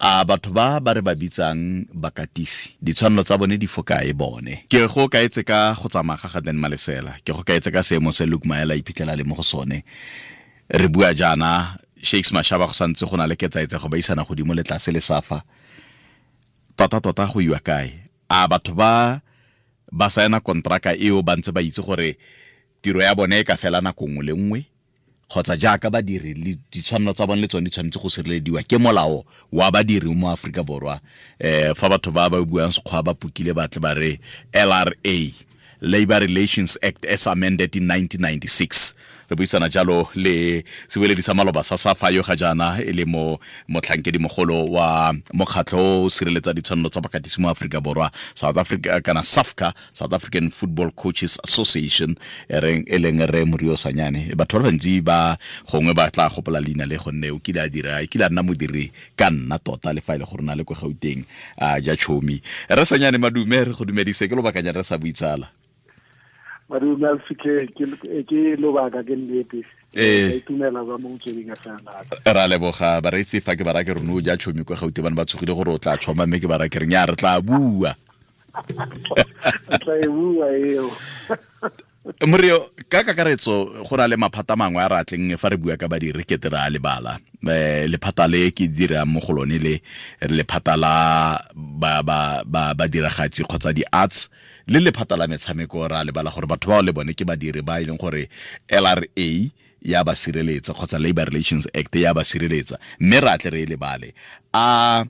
A batho ba ba re ba bitsang bakatisi, ditshwanelo tsa bone di fokae bone? Ke go kaetse ka go tsamaya ga ga Dan Malesela, ke go kaetse ka seemo se Luke Maela iphitlhela le mo go sone. Re bua jaana, Shakes Mashaba go santse go na le ketsaetsego ba isana godimo le tlase le safa. Tota-tota go iwa kae? A batho ba ba saena kontraka eo ba ntse ba itse gore tiro ya bone e ka fela nako nngwe le nngwe, kgotsa jaaka badiri le ditshwanelo tsa bone le tsone di tshwanetse go sirelediwa ke molao wa badiri mo Aforika Borwa? Fa batho ba ba buang Sekgowa ba pukile ba tle ba re LRA, Labor Relations Act as amended in 1996. Re buisana jalo le sebueledi sa maloba sa SAFA yo ga jaana e le mo motlhankedi mogolo wa mokgatlho o sireletsa ditshwanelo tsa bakatisi mo Aforika Borwa, South Africa kana SAFCA, South African Football Coaches Association, e leng re Morio Sanyane. Batho ba bantsi ba gongwe ba tla gopola leina le gonne o kile a dira, e kile a nna modiri ka nna tota le fa e le gore na le kwa Gauteng a ja chomi. Re Sanyane, madume, re go dumedise, ke lobakanyana re sa buitsala. Madume a fitlhe, ke lobaka, ke nnete. Itumela ba mo motsweding FM. Ra leboga bareetsi. Fa ke bara ke rone o ja chomi kwa Gauteng, bane ba tshogile gore o tla tshoma, mme ke bara ke re nya re tla bua. Tla e bua eo. Morio, ka kakaretso go na le maphata mangwe a re atleng fa re bua ka badiri ke tere a lebala. Lephata le ke dirang mo go lone le lephata la ba badiragatsi kgotsa di-arts le lephata la metshameko, ra lebala gore batho bao le bone ke badiri ba e leng gore LRA ya ba sireletsa kgotsa Labor Relations Act ya ba sireletsa, mme ra tle re e lebale. A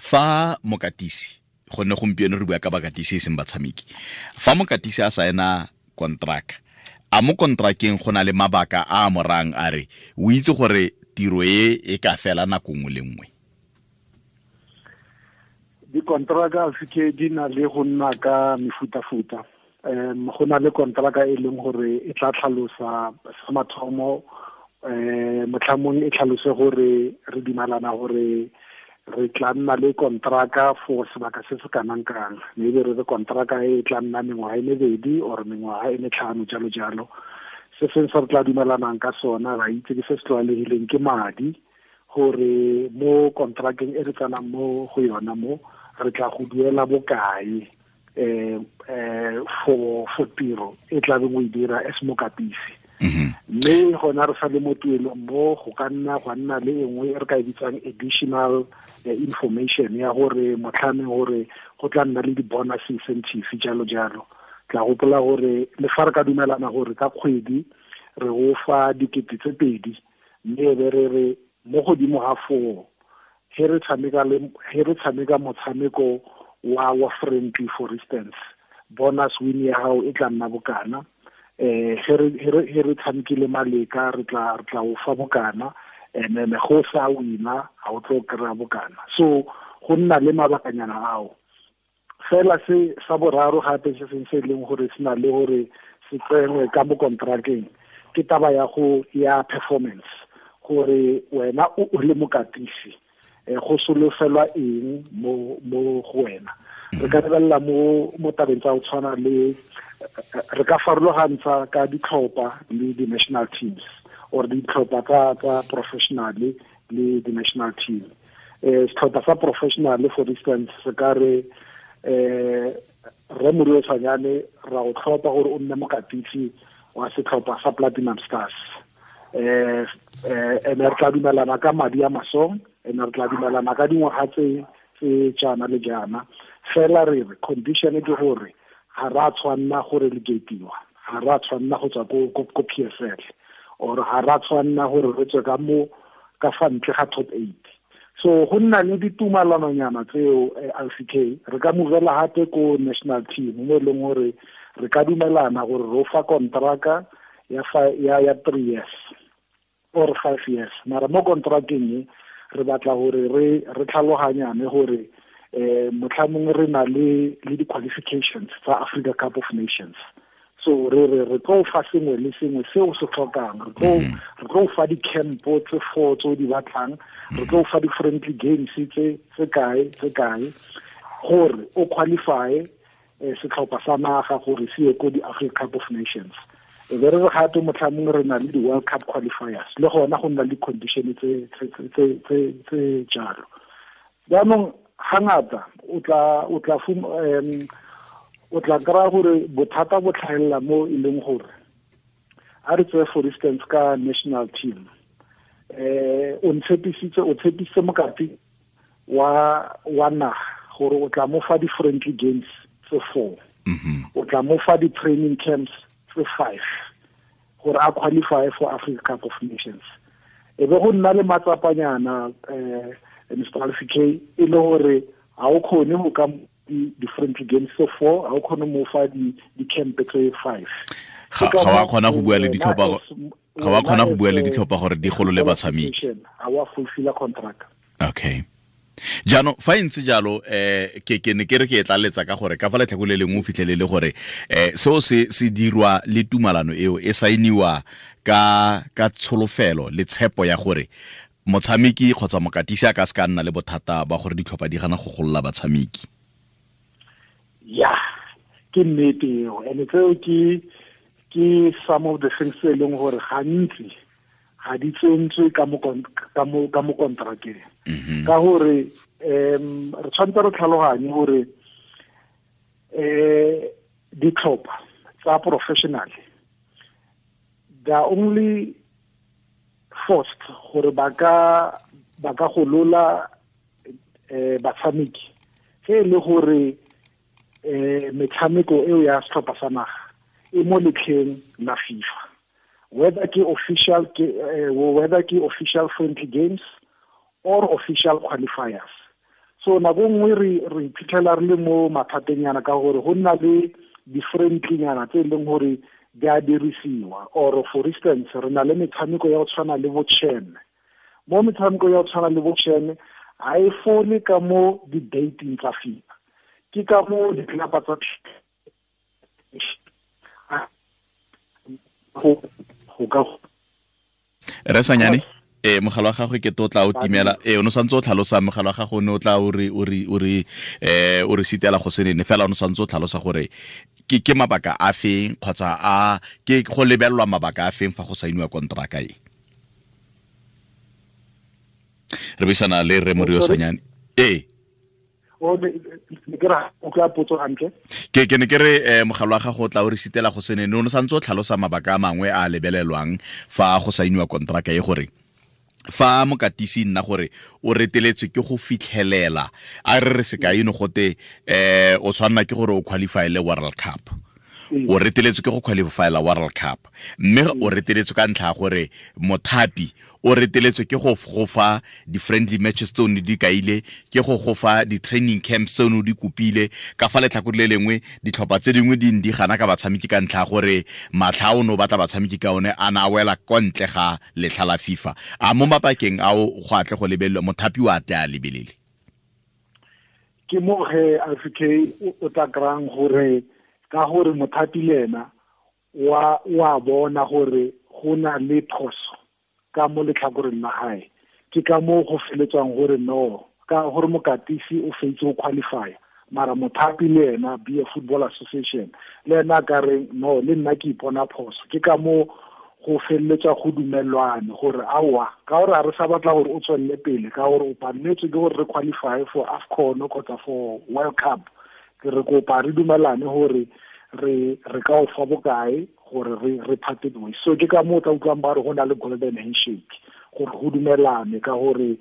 fa mokatisi, gonne gompieno re bua ka bakatisi e seng batshameki, fa mokatisi a saena kontraka, a mo kontrakeng go na le mabaka a a morang a re o itse gore tiro e e ka fela nako nngwe le nngwe? Dikontraka seke di na le go nna ka mefutafuta. Go na le kontraka e leng gore e tla tlhalosa sa mathomo, motlhamong e tlhalose gore re dumalana gore re tla nna le kontraka for sebaka se se kanang kang, maybe re re kontraka e tla nna mengwaga e mebedi or mengwaga e metlhano, jalo jalo. Se seng se re tla dumelanang ka sona, ra itse ke se se tlwaelegileng, ke madi, gore mo kontrakeng e re tsanang mo go yona mo re tla go duela bokae for tiro e tla beng o e dira as mokatisi. Mme gona re sa le mo tuelong mo go ka nna gwa nna le e nngwe e re ka e bitsang additional information ya gore motlhameng gore go tla nna le di-bonus incentive, jalo jalo. Tla gopola gore le fa re ka dumelana gore ka kgwedi re go fa 2,000, mme e be re re mo godimo ga foo he re tshameka le he re tshameka motshameko wa friendly, for instance, bonus win ya gago e tla nna bokana, he re tshamekile maleka re tla o fa bokana, and then go sa wina ga o tlo kry-a bokana. So go nna le mabakanyana ao fela. Se sa boraro gape se seng se e leng gore se na le gore se tsenwe ka mo kontrakeng ke taba ya go ya performance, gore wena o le mokatisi go solofelwa eng mo go wena. Re ka lebelela mo tabeng tsa go tshwana le re ka farologantsha ka ditlhopha le di-national teams or ditlhopha tsa professional le di-national team. Setlhopha sa professional, for instance, se ka re re Morio Sanyane ra o tlhopha gore o nne mokatisi wa setlhopha sa Platinum Stars, ene re tla dumelana ka madi a masong, ene re tla dumelana ka dingwaga tse jaana le jaana, fela re re condition ke gore ga ra tshwanna gore relegatiwa, ga ra tshwanna go tswa ko PSL, or ga ra tshwanna gore re tswe ka mo ka fa ntle ga top 8. So go nna le ditumalanonyana tseo. LCK, re ka movela gape ko national team mo e leng gore re ka dumelana gore ro fa kontraka ya 3 years or 5 years, mara mo kontrakeng e re batla gore re tlhaloganyane gore motlhamong re na le di-qualifications tsa Africa Cup of Nations, so re tlo fa sengwe le sengwe se o se tlhokang, re tlo fa di-campo tse four tse o di batlang, re tlo fa di-friendly games tse kae gore o qualify setlhopha sa naga gore se ye ko di-Africa Cup of Nations. E be re re gape motlhamong re na le di-World Cup qualifiers, le gona go nna le condition tse jalo. Jaanong ga ngata o tla kry-a gore bothata bo tlhagelela mo e leng gore a re tseye for instance ka national team, o tshepisitse mokati wa naga gore o tla mo fa di-friendly games tse 4, o tla mo fa di-training camps tse 5 gore a qualify for Africa Cup of Nations. E be go nna le matsapanyana Mr. Alfie K, e le gore ga o kgone go ka di-friendly games tse 4, ga o kgone mo fa di-camp tse 5. Ga wa kgona go bua le ditlhopha, ga wa kgona go bua le ditlhopha gore di golole batshameki, ga wa fulfilla contract. Okay. Jaanong fa e ntse jalo, ke ne ke re ke e tlaletsa ka gore ka fa letlhako le lengwe o fitlhelele gore seo se dirwa le tumalano eo e saeniwa ka tsholofelo le tshepo ya gore motshameki kgotsa mokatisi a ka se ka nna le bothata ba gore ditlhopha di gana go golola batshameki. Ya, ke nnete eo, and tseo ke some of the things tse e leng gore gantsi ga di tsentswe ka mo kontrakeng. Ka gore re tshwanetse re tlhaloganye gore ditlhopha tsa professional, they are only forced gore ba ka golola batshameki ge e le gore metshameko eo ya setlhopha sa naga e mo letlheng la FIFA, whether ke official friendly games or official qualifiers. So nako nngwe re iphitlhela re le mo mathateng ka gore go nna le di-friendly nyana tse e leng gore di a dirisiwa. Or for instance, re na le metshameko ya go tshwana le bo CHAN. Mo metshameko ya go tshwana le bo CHAN ga e fole ka mo di-dating tsa FIFA, ke ka mo ditlelapa tsa go ka Re Sanyane, mogala wa gagwe ke to tla o timela. O no santse o tlhalosa mogala wa gago, ne o tla o re sitela go senene fela, o no santse o tlhalosa gore ke mabaka a feng kgotsa a ke go lebelelwa mabaka a feng fa go saeniwa kontraka e. Re buisana le Rre Morio Sanyane. Ke ne ke re mogala wa gago o tla o re sitela go senene, o no santse o tlhalosa mabaka a mangwe a lebelelwang fa go saeniwa kontraka e, gore fa mokatisi nna gore o reteletswe ke go fitlhelela, a re re sekai no gote o tshwanna ke gore o qualify le World Cup, o reteletswe ke go qualifyla World Cup, mme o reteletswe ka ntlha ya gore mothapi o reteletswe ke go fa di-friendly matches tse o ne di kaile, ke go fa di-training camps tse o ne di kopile. Ka fa letlhakore le lengwe ditlhopha tse dingwe di di gana ka batshameki ka ntlha ya gore matlha o ne o batla batshameki ka one a na a wela kwa ntle ga letlha la FIFA. A mo mabakeng ao go atle go lebelelwa, mothapi o a tle a lebelele. Ke mo ge Alfie K o tla kry-ang gore ka gore mothapi le ena wa bona gore go na le phoso ka mo letlhakoreng la gae, ke ka moo go feletswang gore no, ka gore mokatisi o fetse go qualify, mara mothapi le ena be a Football Association le ena ka re no, le nna ke ipona phoso. Ke ka moo go feleletswa go dumelwane gore aowa, ka gore a re sa batla gore o tswelele pele, ka gore o paletswe ke gore re qualify for AFCON kgotsa for World Cup, ke re kopa re dumelane gore re ka o fa bokae gore re parted ways. So ke ka moo tla utlwang ba re go na le golden handshake, gore go dumelane ka gore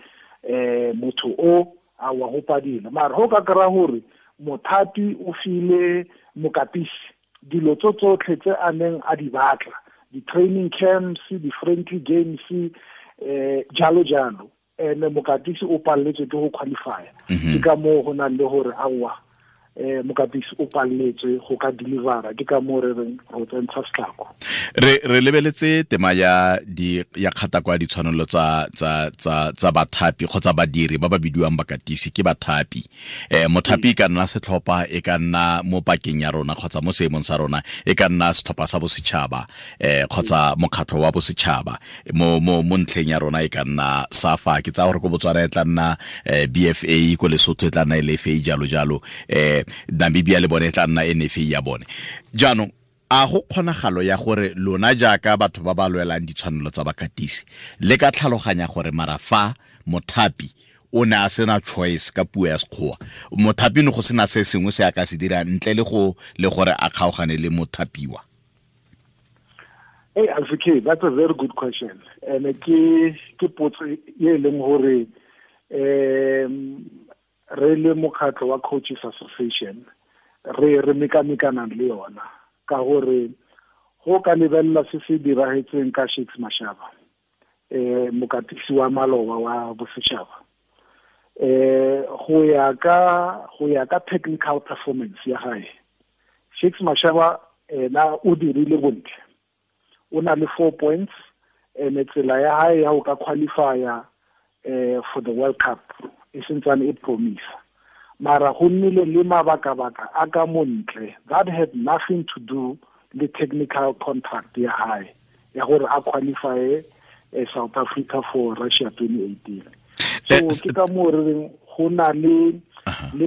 motho o a wa go padile. Mara go ka kry-a gore mothapi o file mokatisi dilo tso tsotlhe tse a neng a di batla, di-training camps, di-friendly games, jalo jalo, and mokatisi o paletswe ke go qualify. Ke ka moo go nang le gore aowa, mokatisi o paletswe go ka delivera, ke ka moo re reng ro tsentsha setlhako. Re lebeletse tema ya ya kgata kwa ditshwanelo tsa tsa tsa tsa bathapi kgotsa badiri ba ba bidiwang bakatisi ke bathapi. Mothapi e ka nna setlhopha, e ka nna mo pakeng ya rona kgotsa mo seemong sa rona, e ka nna setlhopha sa bosetšhaba kgotsa mokgatlho wa bosetšhaba. Mo mo mo ntlheng ya rona e ka nna SAFA, ke tsaya gore ko Botswana e tla nna BFA, ko Lesotho e tla nna LFA, jalo jalo, Namibia le bone e tla nna NFA ya bone. Jaanong a go kgonagalo ya gore lona jaaka batho ba ba lwelang ditshwanelo tsa bakatisi le ka tlhaloganya gore mara fa mothapi o ne a sena choice ka puo ya Sekgowa, mothapi ne go sena se sengwe se a ka se dirang ntle le go le gore a kgaogane le mothapiwa? Hey, Alfie, that's a very good question. And ke potso e leng gore re le mokgatlho wa Coaches Association re mekamekana le yona, ka gore go ka lebelela se se diragetseng ka Shakes Mashaba, mokatisi wa maloba wa bosetšhaba, go ya ka technical performance ya gae, Shakes Mashaba ena o dirile bontle, o na le 4 points, and tsela ya hae ya go ka qualifya for the World Cup e sentsane e promise. Mara go nnile le mabaka-baka a ka montle that had nothing to do le technical contract ya hae ya gore a qualify South Africa for Russia 2018. So ke ka moo re reng go na le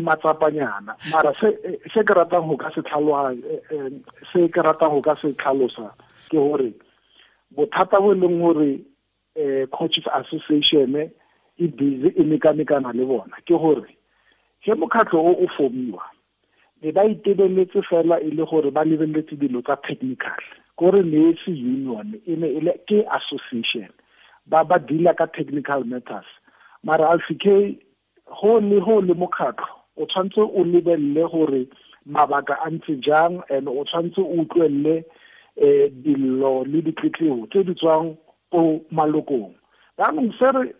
matsapanyana. Mara se ke ratang go ka se se ke ratang go ka se tlhalosa ke gore bothata bo leng gore Coaches Association e busy e mekamekana le bona ke gore ge mokgatlho o formiwa be ba itebeletse fela e le gore ba lebeletse dilo tsa technical, kore ne se union e ne e le ke association, ba deala ka technical matters. Mara Alfie, go le mokgatlho o tshwanetse o lebelele gore mabaka a ntse jang, and o tshwanetse o utlwelele dillo le ditletlebo tse di tswang ko malokong. Jaanong se re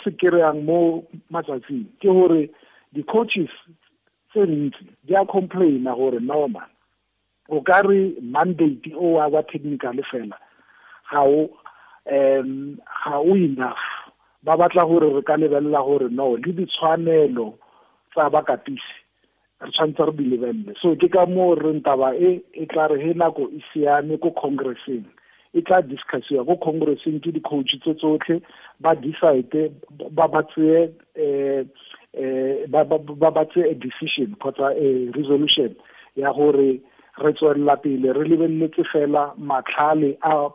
se kry-ang mo matsatsing ke gore di-coaches tse ntsi di a complaina gore no man, o ka re mandate o wa technical fela ga o enough. Ba batla gore re ka lebelela gore no le ditshwanelo tsa bakatisi re tshwanetse re di lebelele. So ke ka moo re ntaba e tla re he nako e siame ko congresseng, e tla discussiwa ko congresseng ke di-coach tse tsotlhe, ba decide ba tseye ba tseye a decision kgotsa a resolution ya gore re tswelela pele re lebeletse fela matlhale a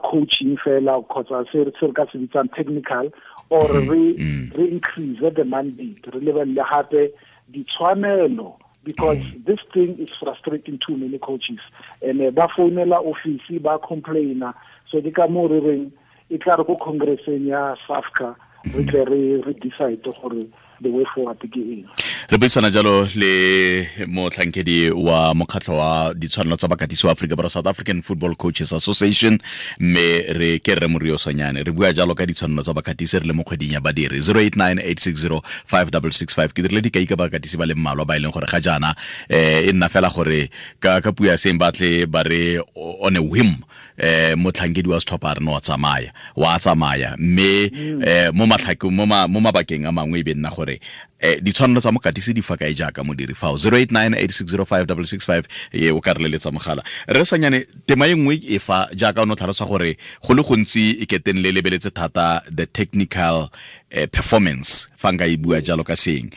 coaching fela kgotsa se re ka se bitsang technical, or re increase the mandate, re lebelele gape ditshwanelo, because this thing is frustrating too many coaches, and ba founela office ba complaina. So ke ka moo re reng e tla re ko congresseng ya SAFCA re tle re decide gore the way forward ke eng. Re buisana jalo le motlhankedi wa mokgatlho wa ditshwanelo tsa bakatisi wa Afrika Borwa, South African Football Coaches Association, mme re ke Rre Morio Sanyane. Re bua jalo ka ditshwanelo tsa bakatisi re le mo kgweding ya badiri. 0898605665. Ke dirile dikai ka bakatisi ba le mmalwa ba e leng gore ga jaana e nna fela gore ka puo ya seng batle ba re on a whim, motlhankedi wa setlhopha re no tsamaya wa tsamaya, mme mo matlhakong mo mabakeng a mangwe e be nna gore ditshwanelo tsa mokatisi di fa kae jaaka modiri fao. 0898605665 e o ka re leletsa mogala. Re Sanyane, tema e nngwe e fa jaaka o ne o tlhalosa gore go le gontsi e keteng le lebeletse thata the technical performance, fa nka e bua jalo ka seng,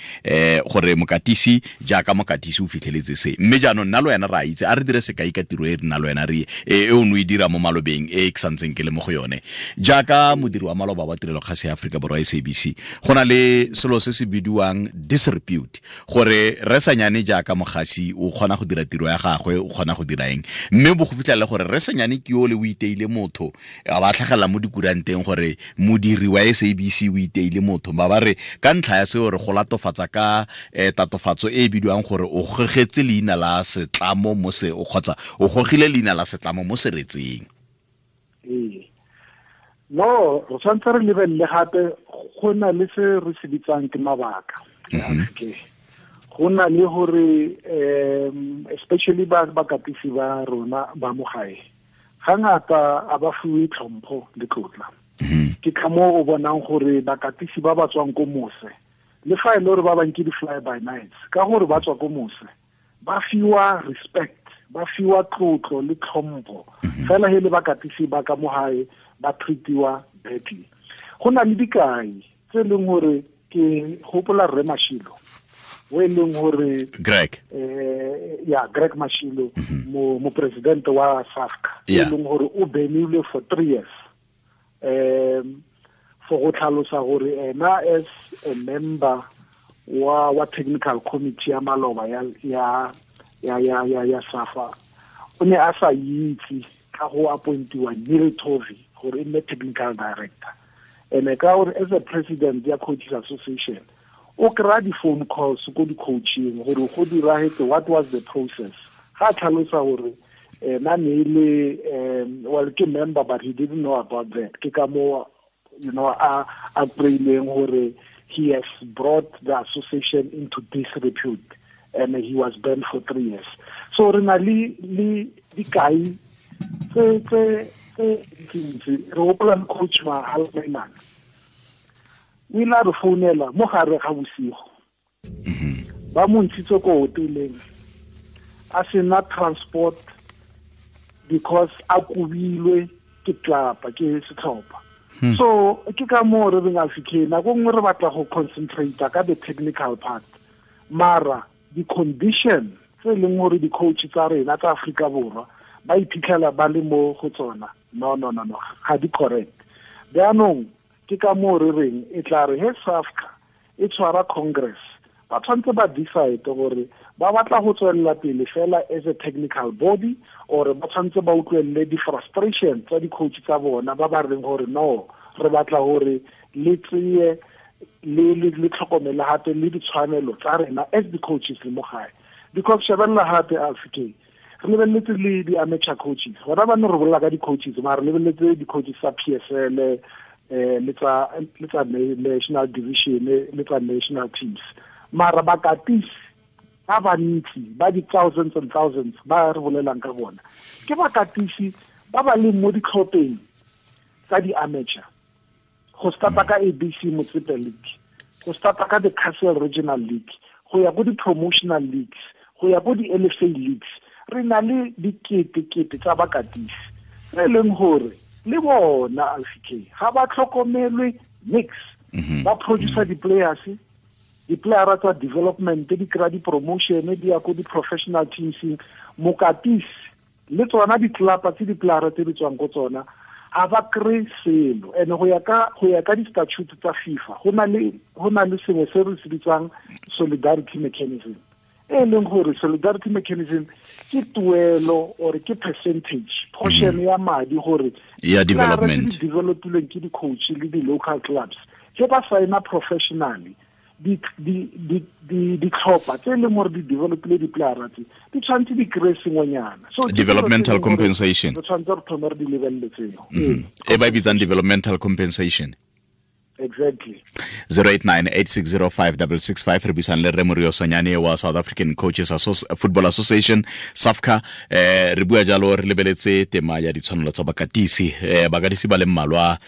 gore mokatisi jaaka mokatisi o fitlheletse se, mme jaanong nna le wena re a itse, a re dire sekai ka tiro e nna le wena re e o ne o e dira mo malobeng e ke santseng ke le mo go yone jaaka modiri wa maloba wa tirelo kgase ya Aforika Borwa SABC. Go na le selo se se bidiwang disrepute, gore Rre Sanyane jaaka mogasi o kgona go dira tiro ya gagwe, o kgona go dira eng, mme bo go fitlhela gore Rre Sanyane ke yo le o iteile motho, a ba tlhagelela mo dikuranteng gore modiri wa SABC o iteile motho, ba ba re ka ntlha ya seo re go latofatsa ka tatofatso e e bidiwang gore o gogetse leina la setlamo mo se o kgotsa o gogile leina la setlamo mo seretseng. No, re tshwanetse re lebelele gape go na le se re se bitsang ke mabaka. Go na le gore especially ba bakatisi ba rona ba mo gae, ga ngata a ba fiwe tlhompho le tlotla. Ke ka moo o bonang gore bakatisi ba ba tswang ko mose, le fa e le gore ba bang ke di-fly by nights, ka gore ba tswa ko mose ba fiwa respect, ba fiwa tlotlo le tlhompho. Fela he le bakatisi ba ka mo gae ba treatiwa badly. Go na le dikai tse leng gore ke gopola Rre Mashilo, o e leng gore Greg, ya Greg Mashilo, mo president wa SAFCA, e leng gore o benile for 3 years For go tlhalosa gore ena as a member wa technical committee ya maloba ya SAFA, o ne a sa itse ka go appointiwa Neil Tovey gore e nne technical director. And ka gore as a president ya Coaches Association, o kry-a di-phone calls ko di-coaching gore go diragetse, what was the process. Ga tlhalosa gore ena ne le well, ke member, but he didn't know about that. Ke ka mo, you know, a kry-ileng gore he has brought the association into disrepute and he was banned for 3 years. So re na le dikai tse ntsi. Re gopola le coach Mahalemana, o ile a re founela mo gare ga bosigo, ba mo ntshitse ko hoteleng a sena transport because a kobilwe ke tlapa ke setlhopha. So ke ka moo re reng Africa nako nngwe re batla go concentrate ka the technical part, mara di-condition tse e leng gore di-coach tsa rena tsa Afrika Borwa ba iphitlhela ba le mo go tsona, no, ga di correct. Jaanong ke ka moo re reng e tla re he SAFCA e tshwara congress, ba tshwanetse ba decide gore ba batla go tswelela pele fela as a technical body, or ba tshwanetse ba utlwelele di-frustration tsa di-coach tsa bona ba ba reng gore no, re batla gore le tseye le tlhokomele gape le ditshwanelo tsa rena as di-coaches le mo gae. Because shebelela gape Africa, re lebeletse le di-amateur coaches, gona ba ne re bolela ka di-coaches, mara re lebeletse di-coaches tsa PSL, le tsa national division, le tsa national teams, mara bakatisi ba bantsi ba di-thousands and thousands ba re bolelang ka bona ke bakatisi ba ba leng mo ditlhopheng tsa di-amateur, go starta ka ABC Motsepe League, go starta ka the Castle Regional League, go ya ko di-promotional leagues, go ya ko di-LFA leagues. Re na le diketekete tsa bakatisi tse e leng gore le bona Alfie ga ba tlhokomelwe nix. Ba producer di-players, di-playera tsa development di kry-a di-promotion, di ya ko di-professional teams. Mokatisi le tsona ditlelapa tse di-playera tse di tswang ko tsona ga ba kry-e selo. And go ya ka di-statute tsa FIFA, go na le sengwe se re se bitsang solidarity mechanism, e leng gore solidarity mechanism ke tuelo or ke percentage portion ya madi gore ya development di developilweng ke di-coach le di-local clubs ge ba signa professionally, ditlhopha tse e leng gore di developile di-playera tse di tshwanetse di kry-e sengwenyana. So developmental compensation, re tshwanetse re thome re di lebelele tseo e ba e bitsang developmental compensation. Exactly. 089-860-5665 re buisang le Rre Morio Sonyane wa South African Coaches Football Association SAFCA. Re bua jalo re lebeletse tema ya ditshwanelo tsa bakatisi. Bakatisi ba le mmalwa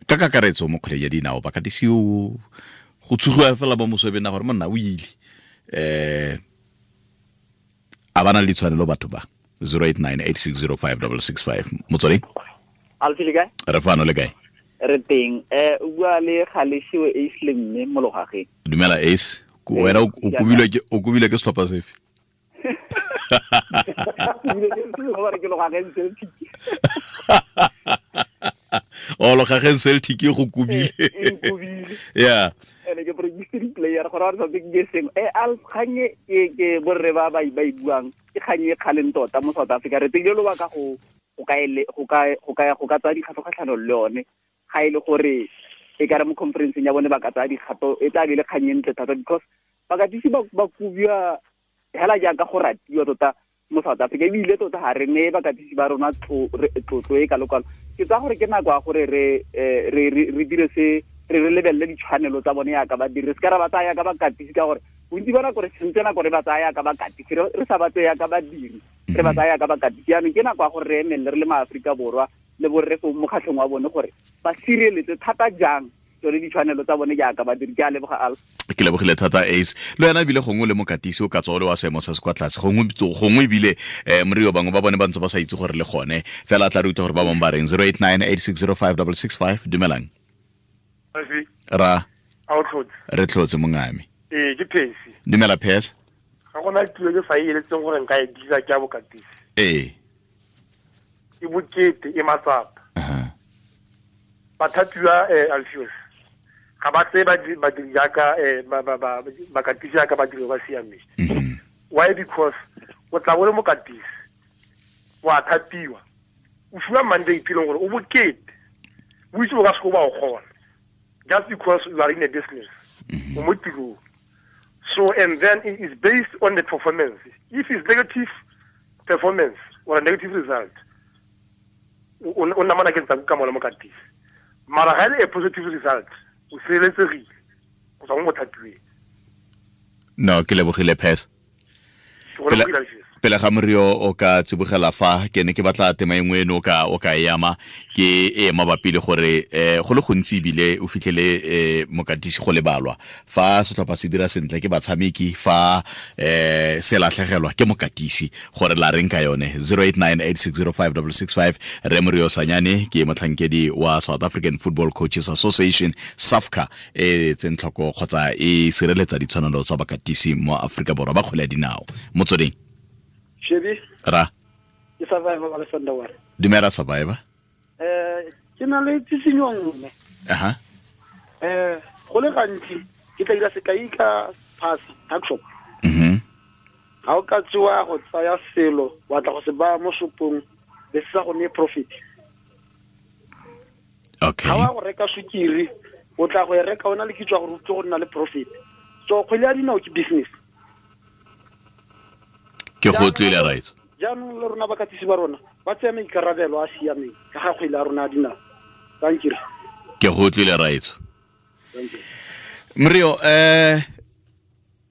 ka kakaretso mo kgwele ya dinao, bakatisi o go tshugiwa fela mo mosobeng na gore monna o ile, a ba na le ditshwanelo batho ba. 089-860-5665. Motswadi Alfie, le kae? Re fano, le kae? Re teng. O bua le Galeshiwe Ace le mme mo Logageng. Dumela Ace, wena o kobilwe ke setlhopha sefe? Ke Logageng Celtic. O Logageng Celtic e go kobile. Yeah. Ene ke producer player gore re sa ke sengwe. Al kganye ke borre ba ba e buang, ke kganye e kgaleng tota mo South Africa. Re tsile lobaka go ka tsaya dikgato kgatlhanong le yone. Ga e le gore e ka re mo conferenceng ya bone ba ka tsaya dikgato, e tla be le kgang e ntle thata, because bakatisi ba kobiwa hela jaaka go ratiwa tota mo South Africa, ebile tota ga re neye bakatisi ba rona tlotlo e kalo-kalo. Ke tsaya gore ke nako ya gore re dire se, re lebelele ditshwanelo tsa bone yaka badiri, re se ka ra ba tsaya yaka bakatisi, ka gore bontsi ba nako re sentse nako re ba tsaya yaka bakatisi, re sa ba tseye yaka badiri, re ba tsaya yaka bakatisi. Jaanong ke nako ya gore re emelele re le maAforika Borwa le borre fo mokgatlhong wa bone gore ba sireletse thata jang tsone ditshwanelo tsa bone jaaka badiri. Ke a leboga Alf. Ke lebogile thata Ace. Le wena ebile gongwe le mokatisi o ka tswa o le wa seemo se se kwa tlase, gongwe ebile morio bangwe ba bone ba ntse ba sa itse gore le gone fela a tla re utlwa gore ba bangwe ba reng. 089-860-5665. Dumelang. Ra re tlhotse mongame. Ke Phesi. Dumela Phesi. Ga gona tiro ke sa e eletseng gore nka e dira ke ya bokatisi. Ee. E bokete e matsapa. Bathapiwa Alfios. Ga ba tseye badiri jaaka bakatisi jaaka badiri ba siameng. Why? Because o tla bo le mokatisi, wa thapiwa, o fiwa mandate e leng gore o bokete, o itse o ka se ba o kgona, just because you are in a business, o mo tirong. So, and then it is based on the performance. If it's negative performance or a negative result, o namana ke ntsa ka mola mokatisi. Mara ga e le a positive result, o sireletsegile go tswa mo mothapiweng. No, ke lebogile Pes. Pele ga Morio o ka tsibogela fa, ke ne ke batla tema e nngwe eno o ka e ama, ke e mabapi le gore go le gontsi ebile o fitlhele mokatisi go lebalwa. Fa setlhopha se dira sentle ke batshameki, fa se latlhegelwa ke mokatisi, gore la reng ka yone. 0898605665. Re Morio Sanyane ke motlhankedi wa South African Football Coaches Association, SAFCA, e tseng tlhoko kgotsa e sireletsa ditshwanelo tsa bakatisi mo Aforika Borwa ba kgwele ya dinao. Motsweding. Shebi. Ra. Ke Survivor wa Lesandawana. Dumela Survivor. Ke na le tsisinyo nngwe. Aha. Go le gantsi ke tla dira sekai ka pass tuck shop. Ga o ka tsewa go tsaya selo wa tla go se baya mo shopong be se sa go neye profit. Okay. Ga wa go reka sukiri, o tla go e reka o na le kitso ya gore o tle go nna le profit. So kgwele ya dinao ke business. Ke go utlwile, right. Jaanong le rona bakatisi ba rona ba tsaya maikarabelo a siameng ka ga kgwele ya rona ya dinao. Thank you. Ke go utlwile, right. Thank you. Morio,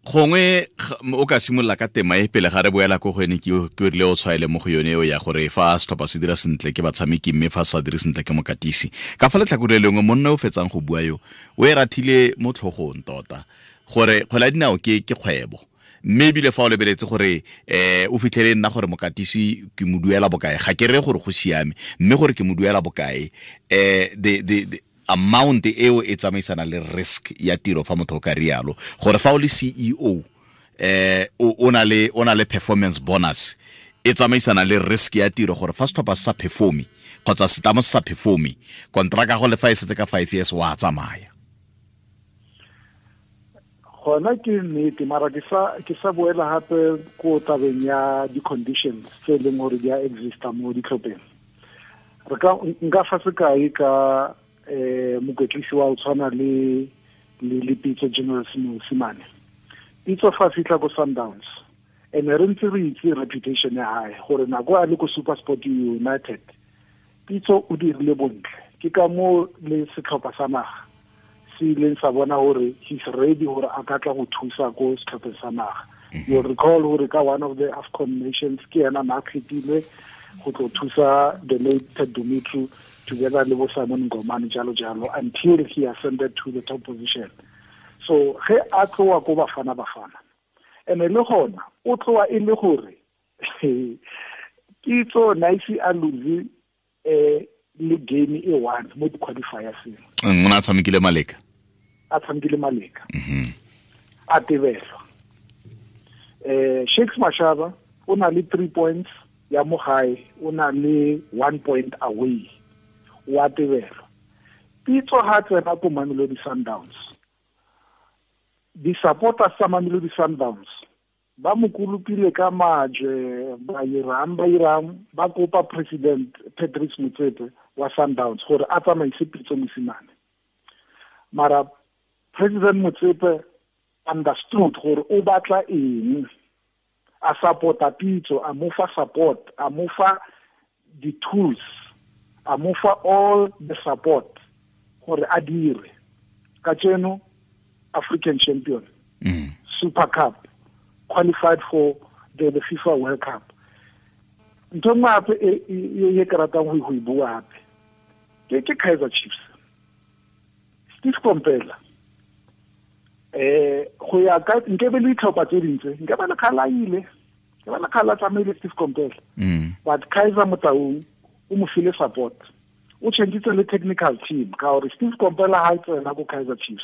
gongwe o ka simolola ka tema e pele ga re boela ko go ene, ke rile o tshwaele mo go yone eo ya gore fa setlhopha se dira sentle ke batshameki, mme fa se sa dire sentle ke mokatisi. Ka fa letlhakore le lengwe, monna o fetsang go bua yo, o e rathile mo tlhogong tota gore kgwele ya dinao ke kgwebo. Mme ebile fa o lebeletse gore o fitlhele nna gore mokatisi ke mo duela bokae, ga ke re gore go siame, mme gore ke mo duela bokae, the amount eo e tsamaisana le risk ya tiro fa motho o ka rialo. Gore fa o le CEO, o na le performance bonus, e tsamaisana le risk ya tiro gore fa setlhopha se sa performe kgotsa setlamo se sa performe, kontraka go le fa e setse ka 5 years wa tsamaya. Gona ke nnete, mara ke sa boela hape ko tabeng ya di-conditions tse e leng gore di a exista mo ditlhopheng. Re ka nka fa sekai ka mokwetlisi wa o tshwana le Pitso General Mosimane. Pitso fa fitlha ko Sundowns, ene re ntse re itse reputation ya hae gore nako a le ko SuperSport United, Pitso o dirile bontle. Ke ka moo le setlhopha sa naga se ileng sa bona gore he's ready gore a ka tla go thusa ko setlhopheng sa naga. You'll recall gore ka one of the AFCON nations ke ena na kgethilwe go tlo thusa the late Ted Dumitru together le bo Simon Ngomane jalo jalo until he ascended to the top position. So ge a tloa ko Bafana Bafana, ene le gona o tloa e le gore Pitso na ise a lose le game e one mo di-qualifiers. O ne a tshamekile Maleka. A tshamekile Maleka. A tebelwa. Shakes Mashaba o na le 3 points ya mo gae, o na le 1 point away. Wa tebelwa. Pitso ha tsena ko Mamelodi Sundowns. Di-supporters tsa Mamelodi Sundowns ba mo kolopile ka majwe, ba irang ba kopa President Patrice Motsepe wa Sundowns gore a tsamaise Pitso Mosimane. Mara President Motsepe understood gore o batla eng, a supporta Pitso, a mo fa support, a mo fa the tools, a mo fa all the support gore a dire. Kajeno African champion, Super Cup, qualified for the FIFA World Cup. Ntho nngwe hape e ke ratang go e bua hape ke Kaizer Chiefs. Steve Komphela, go ya ka nke be le ditlhopha tse dintse, nke ba le kgala ile, ke ba le kgala tsamaile Steve Komphela. But Kaizer Motaung o mo file support, o changitse le technical team ka gore Steve Komphela ha tsena ko Kaizer Chiefs,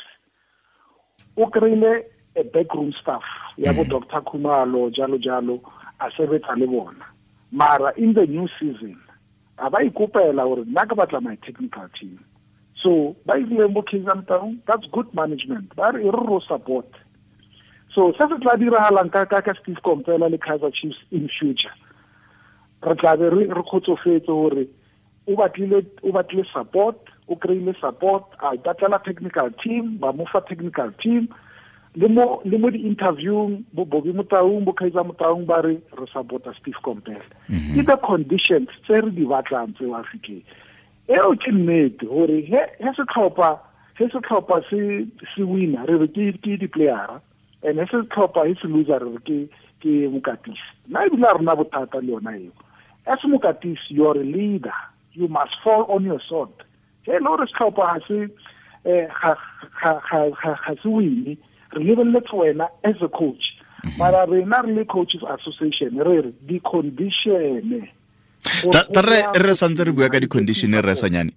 o kry-ile a backroom staff ya bo Dr. Khumalo jalo jalo, a sebetsa le bona. Mara in the new season a ba ikopela gore nna ke batla my technical team. So ba ile mo Kaizer Motaung, that's good management. Ba re ro support. So se se tla diragalang ka Steve Komphela le Kaizer Chiefs in future, re tla be re kgotsofetse gore o batlile support, o kry-ile support, a ipatlela technical team, ba mo fa technical team. Le mo di-interviewng, bo Bobby Motaung, bo Kaizer Motaung ba re re supporta Steve Komphela. Ke the conditions tse re di batlang tse wa Afrika. Eo ke nnete gore he setlhopha se wina re re ke di-playera, and he setlhopha he se loser re re ke mokatisi. Nna ebile a rena bothata le yona eo. As mokatisi, you are a leader. You must fall on your sword. He le gore setlhopha ga se wine, re lebeletse wena as a coach. Mara rena re le Coaches Association re re di-condition. Re santse re bua ka di-condition re sanyane.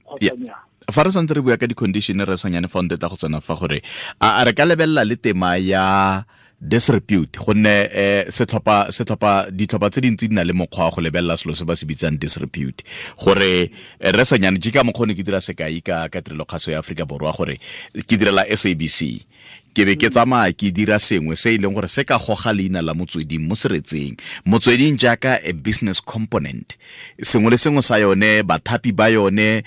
Fa re santse re bua ka di-condition re sanyane fa ntetla go tsena fa gore a re ka lebelela le tema ya disrepute, gonne setlhopha ditlhopha tse dintsi di na le mokgwa wa go lebelela selo se ba se bitsang disrepute, gore re sanyane ke ka mokgwa ne ke dira sekai ka tirelo kgaso ya Aforika Borwa gore ke direla SABC, ke be ke tsamaya ke dira sengwe se e leng gore se ka goga leina la motsweding mo seretseng, motsweding jaaka a business component, sengwe le sengwe sa yone, bathapi ba yone,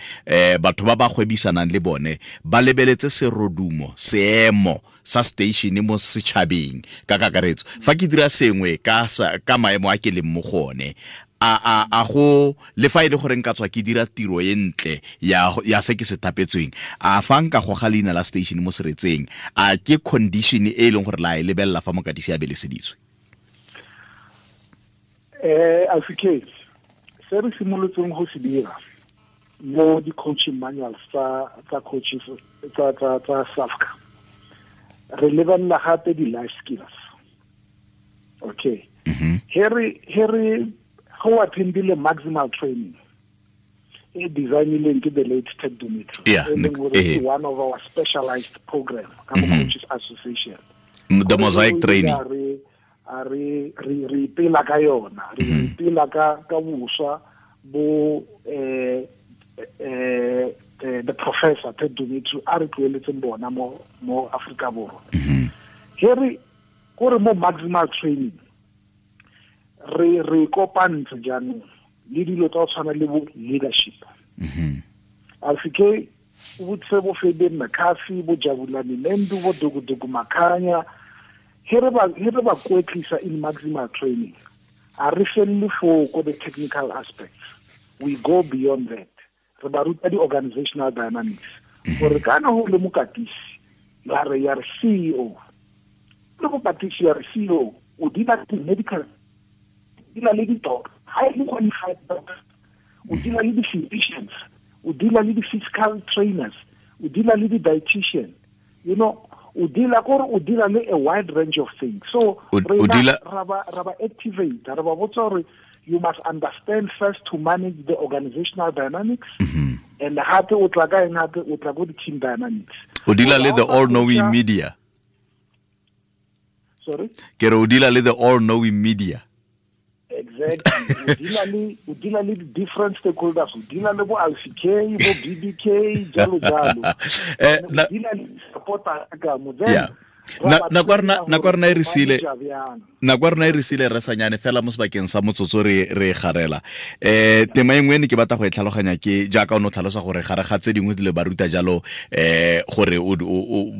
batho ba ba gwebisanang le bone ba lebeletse serodumo, seemo sa station mo setšhabeng ka kakaretso. Fa ke dira sengwe ka maemo a ke leng mo go one, a go le fa e le gore nka tswa ke dira tiro e ntle ya se ke se thapetsweng, a fa nka goga leina la station mo seretseng, a ke condition e e leng gore la e lebelela fa mokatisi a beleseditswe? Afrika, se re simolotseng go se dira mo di-coaching manuals tsa coaches tsa SAFCA, re lebelela gape di-life skills. Okay. He re go attendile maximal training e designileng ke the late Ted Dumitru, e one of our specialized program ka mo Coaches Association, the mosaic training. Re ipela ka yona, re ipela ka boswa bo the professor Ted Dumitru a re tloeletseng bona mo Afrika Borwa. He re kore mo maximal training re kopantse jaanong le dilo tsa go tshwana le bo leadership. Afrika o botse bo Fabian McCarthy, bo Jabulani Mendu, bo Dukuduku Makhanya, he re ba kwetlisa in maximal training, a re felle foo ko the technical aspects, we go beyond that. Re ba ruta di-organizational dynamics, gore kana go le mokatisi ya re CEO, le mokatisi ya re CEO o dira medical, dealer le di-doctor, highly qualified doctor, o dealer le di-physicians, o dealer le di-physical trainers, o dealer le di-dietitian, you know, o dealer kore o dealer le a wide range of things. So ra ba activate, ra ba botsa gore you must understand first to manage the organizational dynamics, and gape o tla ka eng, gape o tla go di-team dynamics. O dealer le the all-knowing media. Sorry? Ke re o dealer le the all-knowing media. Exactly. O dealer le different stakeholders, o dealer le bo LCK, bo BBK, jalo jalo. O dealer le supporter ka mo. Nako rena e re sile re sanyane fela mo sebakeng sa motsotso re garela. Tema e nngwe ne ke batla go e tlhaloganya ke jaaka o ne o tlhalosa gore gare ga tse dingwe dilo ba ruta jalo, gore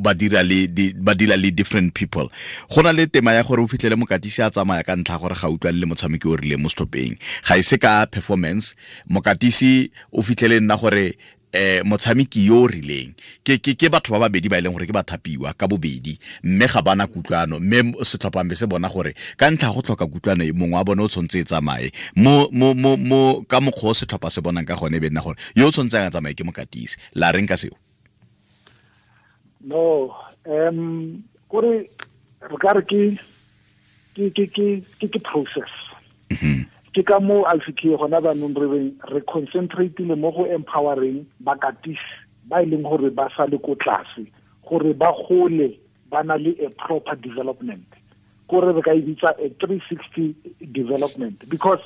ba dira le different people. Go na le tema ya gore o fitlhele mokatisi a tsamaya ka ntlha gore ga utlwane le motshameki o rileng mo setlhopheng, ga e se ka performance. Mokatisi o fitlhele nna gore motshameki yo o rileng ke batho ba babedi ba e leng gore ke bathapiwa ka bobedi, mme ga bana kutlwano, mme setlhopha se bona gore ka ntlha go tlhoka kutlwano e mongwe wa bone o tshwanetse e tsamaye mo ka mokgwa o setlhopha se bonang ka gone, be nna gore yo o tshwanetseng a tsamaye ke mokatisi. La reng ka seo? No, kore re ka re ke process. Ke ka mo LCK gona banong re reng re concentrate-ile mo go empowering bakatisi ba e leng gore ba sa le ko tlase, gore ba gole ba na le a proper development, gore re ka e bitsa a 360 development, because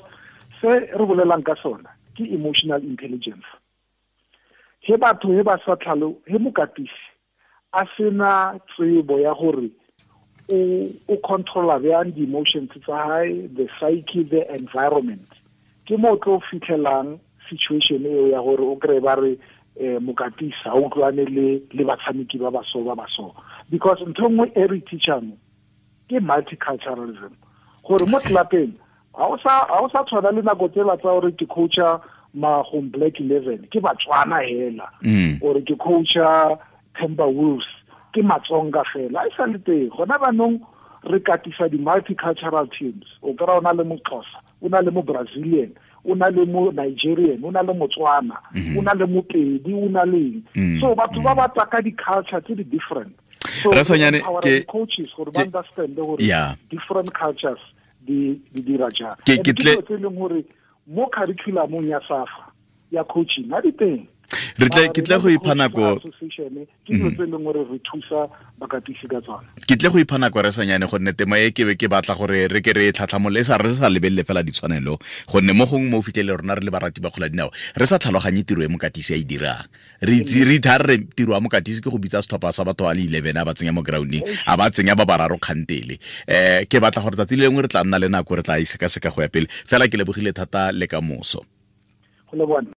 se re bolelang ka sona ke emotional intelligence. He batho he ba sa tlhalo he mokatisi a sena tsebo ya gore o controla bjang di-emotions tsa hae, the psyche, the environment, ke mo tlo fitlhelang situation eo ya gore o kry ba re mokatisi ha utlwane le batshameki ba baso because ntho nngwe e re teachang ke multiculturalism, gore mo tlelapeng ha o sa tshwana le nako tsela tsa gore ke coacha Magong Black 11 ke Batswana hela, or ke coacha Timber Wolves ke Matsonga fela. A e sa le teng gona banong re katisa di-multicultural teams. O kry-a o na le Moxhosa, o na le mo Brazilian, o na le mo Nigerian, o na le Motswana, o na le Mopedi, o na le eng. So batho ba ba tswa ka di-culture tse di different. So Rasanyane ke coaches gore ba understand gore different cultures di dira jang. Ke tle tse leng gore mo curriculumong ya SAFA ya coaching ha di teng. Re tle ke tle go ipha nako ke dilo tse leng gore re thusa bakatisi ka tsona. Ke tle go ipha nako Rasanyane gonne tema e ke be ke batla gore re ke re tlhatlhamole e sa re sa lebelele fela ditshwanelo, gonne mo gongwe mo fitlhele rona re le barati ba kgola dinao re sa tlhaloganye tiro e mokatisi a e dirang. Re itse re ithare re tiro ya mokatisi ke go bitsa setlhopha sa batho ba le 11 a ba tsenya mo grounding, a ba tsenya ba bararo kgantele. Ke batla gore tsatsi le lengwe re tla nna le nako re tla e sekaseka go ya pele. Fela ke lebogile thata le ka moso. Go leboga.